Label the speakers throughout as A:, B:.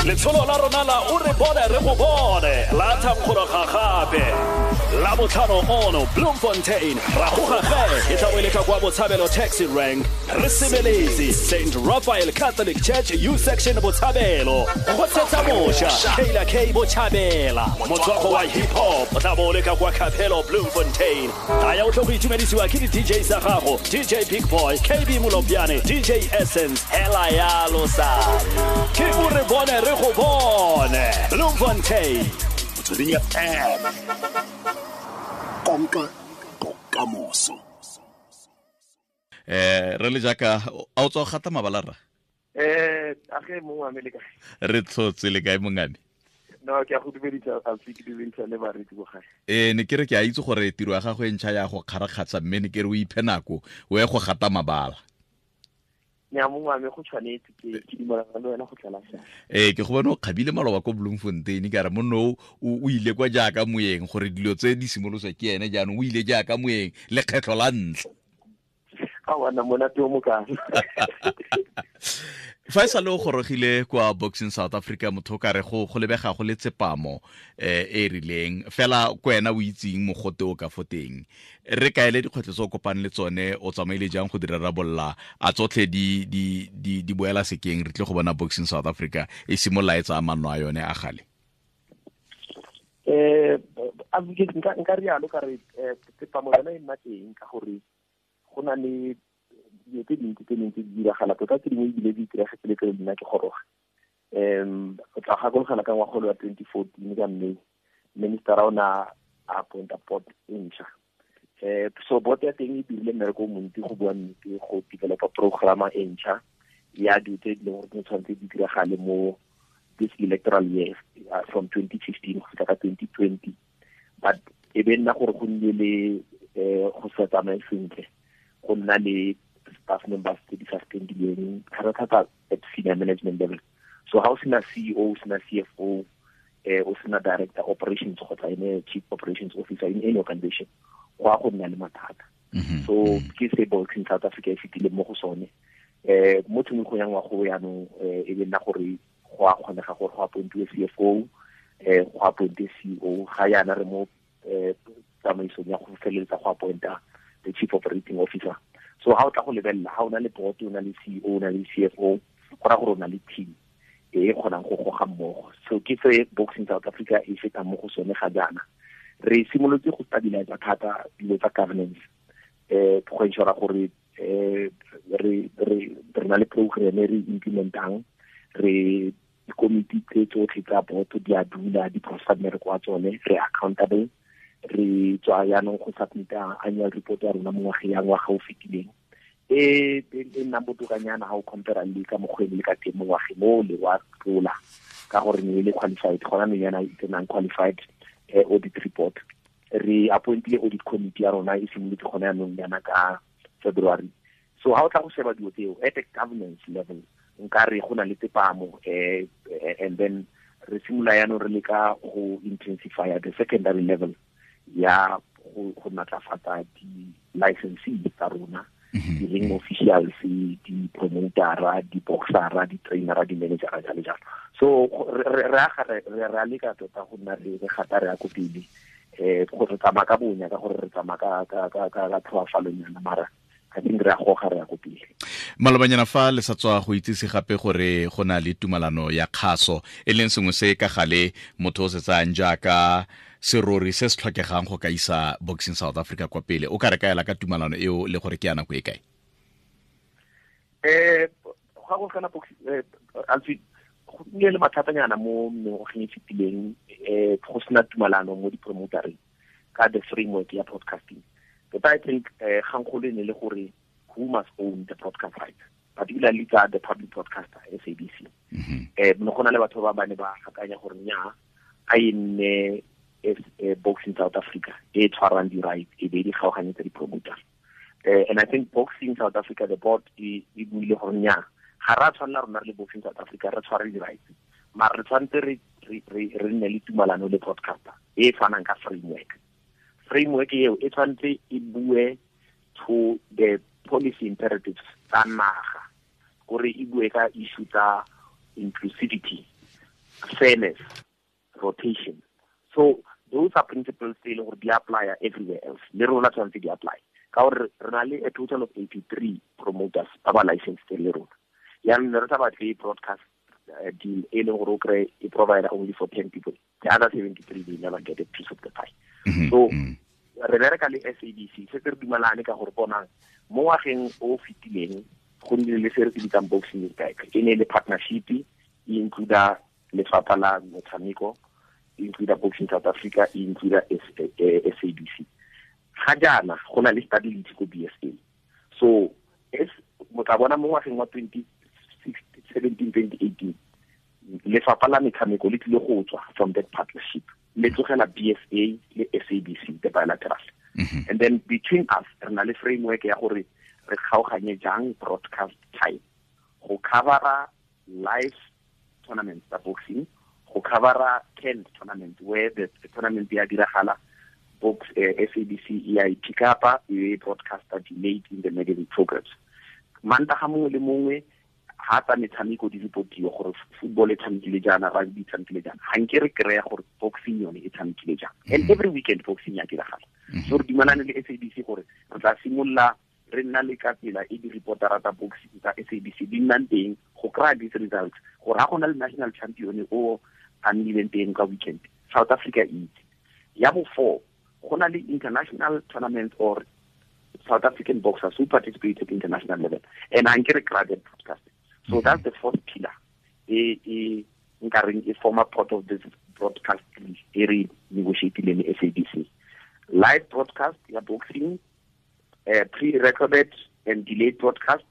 A: Letsholo la rona la o re bone re go bone la thankgologa gape la botlhano ono Bloemfontein ra goga ge e tla bo e le ka kwa Botshabelo taxi rank re sebeletse St Raphael Catholic Church U section Botshabelo go tshetsa moša Kayla K Botshabela motswako wa hip hop o tla bo o le ka kwa Capello Bloemfontein. Taya o tlo go itumedisiwa ke di-DJ tsa gago DJ Big Boy, KB Molopjane, DJ Essence, hela yalo sa ke o re bone re go bone Bloemfontein.
B: Motsweding FM, konka bokamoso.
C: Re le jaaka a o tswa go gata mabala rra?
D: A ge mongwe wa me le kae?
C: Re tlhotse le kae mongame?
D: No, ke a go dumedisa, Alfi, ke dumedisa le bareetsi bo gae.
C: Ne ke re ke a itse gore tiro ya gago e ntšha ya go kgarakgatsha, mme ne ke re o iphe nako o ye go gata mabala.
D: Nya mongwe wa me go tshwanetse, ke dumelana le wena go tlala sa.
C: Ke go bona o kgabile maloba ko Bloemfontein, ka re monno o ile kwa jaaka moeng gore dilo tse di simoloswa ke ene jaanong o ile jaaka moeng lekgetlho la ntlha.
D: A wana monate o mokana.
C: Fa e sale o gorogile kwa Boxing South Africa, motho o ka re go lebega go le tsepamo e rileng fela ko wena o itseng mogote o ka fo teng. Re kaele dikgwetlho tse o kopane le tsone, o tsamaile jang go di rarabolola, a tsotlhe di boela sekeng, re tle go bona Boxing South Africa e simolola e tsaya manno a yone a gale?
D: Nka rialo ka re tsepamo yone e nna teng ka gore go na le dilo tse dintsi tse dintsi di diragala, tota tse dingwe ebile di itiragetse le pele nna ke goroga. O tla gakologela ka ngwaga wa 2014 ka mme minister o na a appointa board e ntšha. So board ya teng e dirile mmereko o montsi go bua nnete, go developa programa e ntšha ya dilo tse di leng gore di tshwanetse di diragale mo this electoral year, from 2015 go fitlha ka 2020. But e be nna gore go nnile le go sa tsamaye sentle, go nna le staff members tse di sa spendileng thata-thata at senior management level. So ha o sena CEO, o sena CFO, o sena director operations kgotsa ene chief operations officer in any organization, go a go nna le mathata. So ke se Boxing South Africa e fetileng mo go sone. Mo tshimologong ya ngwaga o jaanong, e be nna gore go a kgonega gore go appointiwe CFO, go appointiwe CEO. Ga jaana re mo tsamaisong ya go feleletsa go appointa the chief operating officer. So ha o tla go lebelela, ha o na le board, o na le CEO, o na le CFO, go raya gore o na le team e e kgonang go goga mmogo. So ke se Boxing South Africa e fetang mo go sone ga jaana. Re simolotse go stabilize thata dilo tsa governance, go ensure gore re na le program e re implementang, re dikomiti tse tsotlhe tsa board di a dula, di processa mmereko wa tsone, re accountable. Re tswa jaanong go submita annual report ya rona mo ngwageng ya ngwaga o fetileng, e nnang botokanyana ha o compare le ka mokgwa e le ka teng mo ngwageng o le wa tlola, ka gore ne e le qualified, gona ne yana e tsenang qualified audit report. Re appointile audit committee ya rona e simolotse gone jaanong yana ka February. So ha o tla go sheba dilo tseo at the governance level, nka re go na le tsepamo, and then re simolola jaanong re leka go intensify the secondary level ya go natlafatsa di-licensee tsa rona, di-ring officials, di-promotera, di-boxera, di-trainera, di-managera, jalo jalo. So re aga re a leka tota go nna re gata re ya ko pele, gore re tsamaya ka bonya, ka gore re tsamaya ka tlhoafalonyana, mara I think re a goga re ya ko pele.
C: Malobanyana fa le sa tswa go itsise gape gore go na le tumalano ya kgaso, e leng sengwe se ka gale motho o se tsayang jaaka serori se se tlhokegang go ka isa Boxing South Africa kwa pele. O ka re kaela ka tumalano eo le gore ke ya nako e kae?
D: Ga go kana boxing, Alfi, go nnile le mathatanyana mo mengwageng e fetileng, go sena tumalano mo di-promotereng ka the framework ya broadcasting. But I think kgangkgolo e ne le gore who must own the broadcast rights, particularly tsa the public broadcaster SABC. Ne go na le batho ba ba ne ba akanya gore nnyaa, a e nne Boxing South Africa e tshwarang di-rights e be di kgaoganyetsa di-promoter. And I think Boxing South Africa, the board e buile gore nnyaa, ga re a tshwanela rona re le Boxing South Africa re tshware di-rights, mara re tshwanetse re nne le tumalano le broadcaster e tshwanang ka framework. Framework eo e tshwanetse e bue to the policy imperatives tsa naga, gore e bue ka issue tsa inclusivity, Fairness, rotation. So those are principles tse e leng gore di apply everywhere else, le rona tshwanetse di apply, ka gore re na le a total of 83 promoters ba ba licensed le rona. Yaanong ne re sa batle broadcast deal e leng gore o kry e provide only for 10 people, the other 73 they never get a piece of the pie. So re bereka le SABC, se re dumalane ka gore bonang mo ngwageng o fetileng go nnile le se re se bitsang Boxing is Back. E ne le partnership e includa lefapha la metshameko, e includa Boxing South Africa, e includa SABC. Ga jaana go na le stability ko BSA. So es motla bona mo ngwageng wa 2017 2018 lefapha la metshameko le tlile go tswa from that partnership, le tlogela BSA le SABC, the bilateral. And then between us re na le framework ya gore re kgaoganye jang broadcast time go covera live tournaments tsa boxing, go covera 10 tournament where the tournament ya diragala, box SABC e ya pick up e broadcaster delayed in the magazine programs. Mantaga mongwe le mongwe ha tsa metshameko di reportiwa gore football e tshamekile jaana, rugby e tshamekile jaana, ga nke re kry-a gore boxing yone e tshamekile jang. And every weekend boxing ya diragala. So re dumalane le SABC gore re tla simolola re nna le ka tsela e di-reportera tsa boxing tsa SABC di nnang teng go kry-a these results, gore ga go na le national champion o a nnileng teng ka weekend, South Africa e itse. Ya bo four, go na le international tournament or South African boxers who participate at international level, and a nke re kry that broadcast. So that's the fourth pillar e nkareng e former part of this broadcast e re negotiatileng le SABC. Live broadcast ya boxing, pre-recorded and delayed broadcast,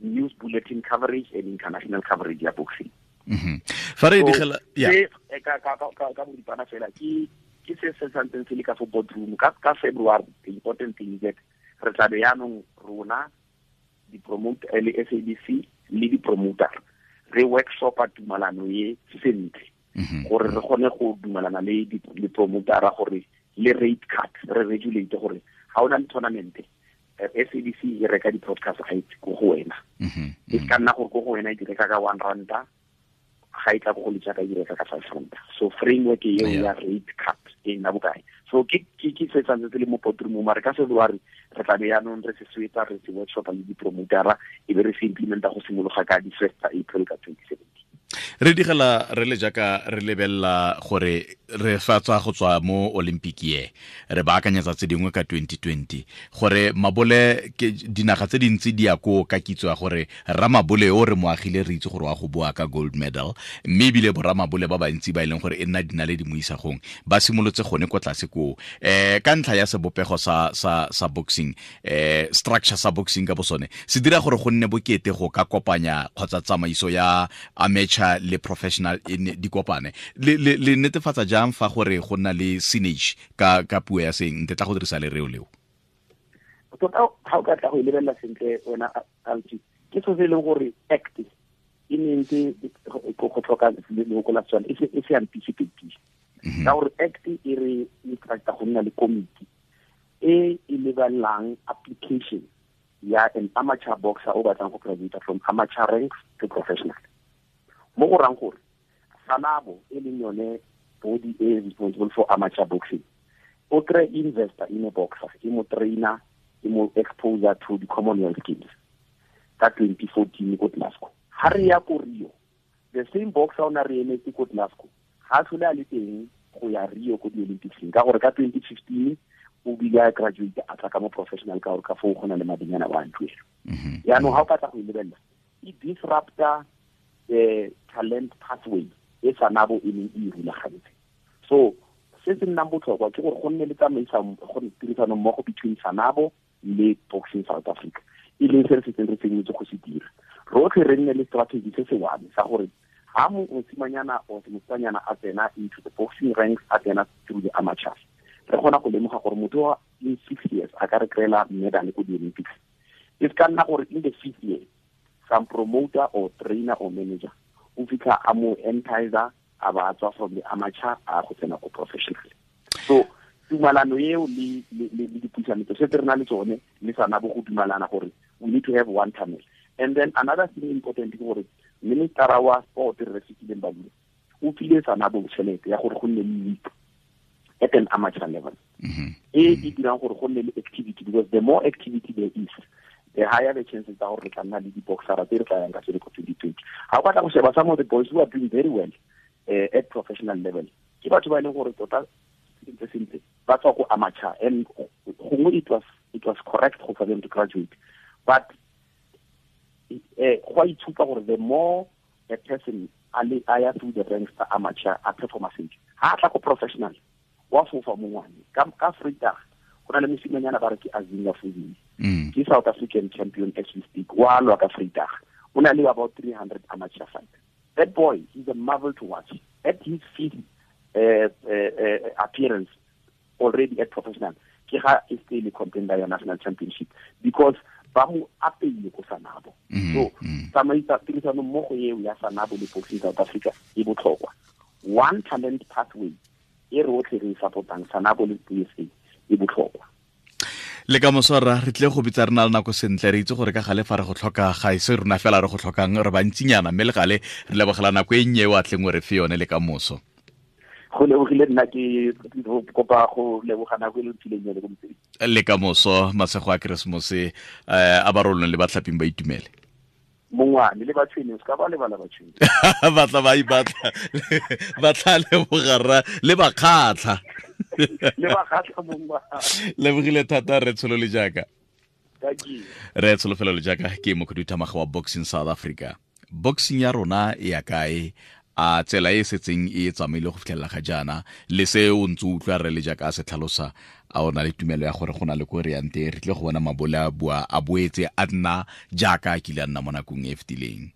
D: news bulletin coverage and international coverage ya boxing.
C: Fa re digela
D: ya ka boripana fela ke se se santseng se le ka fo boardroom ka February. The important thing is that re tla be yaanong rona di promote le SABC le di promoter re workshopa tumalano e sentle, gore re kgone go dumalana le di promotera gore le rate card re regulate gore ga o na le tournament SABC e reka di-broadcast rights ko go wena. E ka nna gore ko go wena e di reka ka 1 ranta, ga e tla ko go letsaka e di reka ka 5 ranta. So framework eo ya rate card e nna bokae. So ke se santse se le mo boardroom, mare ka February re tla be yaanong re se swetsa, re se workshopa le di-promotera, e be re se implementa go simologa ka di-1 April ka 2017.
C: Re digela re le jaaka re lebelela gore re fa tswa go tswa mo Olympic ye, re baakanyetsa tse dingwe ka 2020, gore mabole ke dinaga tse dintsi di ya ko ka kitso ya gore ramabole o re mo agile re itse gore wa go boa ka gold medal, mme ebile boramabole ba bantsi ba e leng gore e nna dinaledi mo isagong ba simolotse gone ko tlase koo. Ka ntlha ya sebopego sa boxing, structure sa boxing ka bosone se dira gore go nne bokete go ka kopanya kgotsa tsamaiso ya amateur le professional di kopane. Le netefatsa jang fa gore go nna le synergy ka puo ya seng nte tla go dirisa lereo leo?
D: Tota ga o ka tla go e lebelela sentle wena Alti, ke so se e leng gore act e ne ntse go tlhoka leloko la Setswana e se anticipate, ka gore act e re instructa go nna le committee e e lebelelang application ya an amateur boxer o batlang go graduate from amateur ranks to professional. Mo go rang gore SANABO e leng yone body e responsible for amateur boxing, o kry investor in a boxer, e mo trainer, e mo exposure to the Commonwealth Games ka 2014 ko Glasgow. Ha re ya ko Rio, the same boxer o na re emetse ko Glasgow ga tlhole a le teng go ya Rio ko di-Olympics, ka gore ka 2015 o bile a graduate a tla ka mo professional, ka gore ka foo go na le madinyana wa ntuelo. Yaanong ga o ka tla go e lebelela, e disrupta the talent pathway e SANABO e neng e rulagantse. So se se nnang botlhokwa ke gore go nne le tirisano mmogo between SANABO le Boxing South Africa, e leng se re setseng re tsenyetse go se dira. Rotlhe re nne le strategy se se one sa gore ha mosimanyana or mosetsanyana a tsena into the boxing ranks, a tsena through the amateurs, re kgona go lemoga gore motho wa in 6 years a ka re kry-ela medal ko di-Olympics. E se ka nna gore in the 5th year some promoter or trainer or manager o fitlha a mo entizer a ba tswa from the amateur a go tsena ko professional. So tumalano eo le dipuisano tse re na le tsone le SANABO go dumalana gore we need to have one tunnel. And then another thing important ke gore minister wa sport re Fikile Mbalula O file SANABO tšhelete ya gore go nne le league at an amateur level e e dirang gore go nne le activity, because the more activity there is, the higher the chances tsa gore re tla nna le di-boxera tse re tla yang ka tsone ko 2020. Ga o batla go sheba some of the boys who are doing very well at professional level, ke batho ba e leng gore tota sentle sentle ba tswa ko amateur, and gongwe it was correct for them to graduate, but go a itshupa gore the more a person a le a ya through the ranks tsa amateur, a performa sentle, ha a tla ko professional, wa fofa mongwane. Ka Vrydag go na le mosimanyana ba re ke Azinga Fuzini, ke South African champion as we speak, wa lwa ka Vrydag. O na le about 300 amateur fight. That boy, he's a marvel to watch. At his fifth appearance already at professional, ke ga e se le contender ya national championship, because ba mo apeile ko SANABO. So tsamaisa tirisano mmogo eo ya SANABO le Boxing South Africa e botlhokwa. One talent pathway e re otlhe re e supportang, SANABO le BSA, e botlhokwa.
C: Le ka moswara re tle go bitsa re na le nako sentle. Re itse gore ka gale fa re go tlhoka, ga e se rona fela re go tlhokang, re bantsinyana, mme le gale re lebogela nako e nnye o a tleng o re fe yone. Le ka moso.
D: Go lebogile nna. Ke kopa go leboga nako e le mphileng yone ko motseng.
C: Le ka moso, masego a Keresemose a barolong le batlhaping ba itumele.
D: Mongwane le batshwene, o se ka ba lebala batshwene.
C: Batla ba ipatla, ba tla lebogarra le bakgatlha.
D: Le bakgatlha, mongwane.
C: Lebogile thata re tsholo le jaaka.
D: Thank you.
C: Re tsholofelo le jaaka ke mokhuduthamaga wa Boxing South Africa. Boxing ya rona e ya kae? A tsela e setseng e tsamaile go fitlhelela ga jaana le se o ntse o utlwa re le jaaka a se tlhalosa, a o na le tumelo ya gore go na le ko re yang teng, re tle go bona mabole a boa a boetse a nna jaaka a kile a nna mo nakong e e fetileng?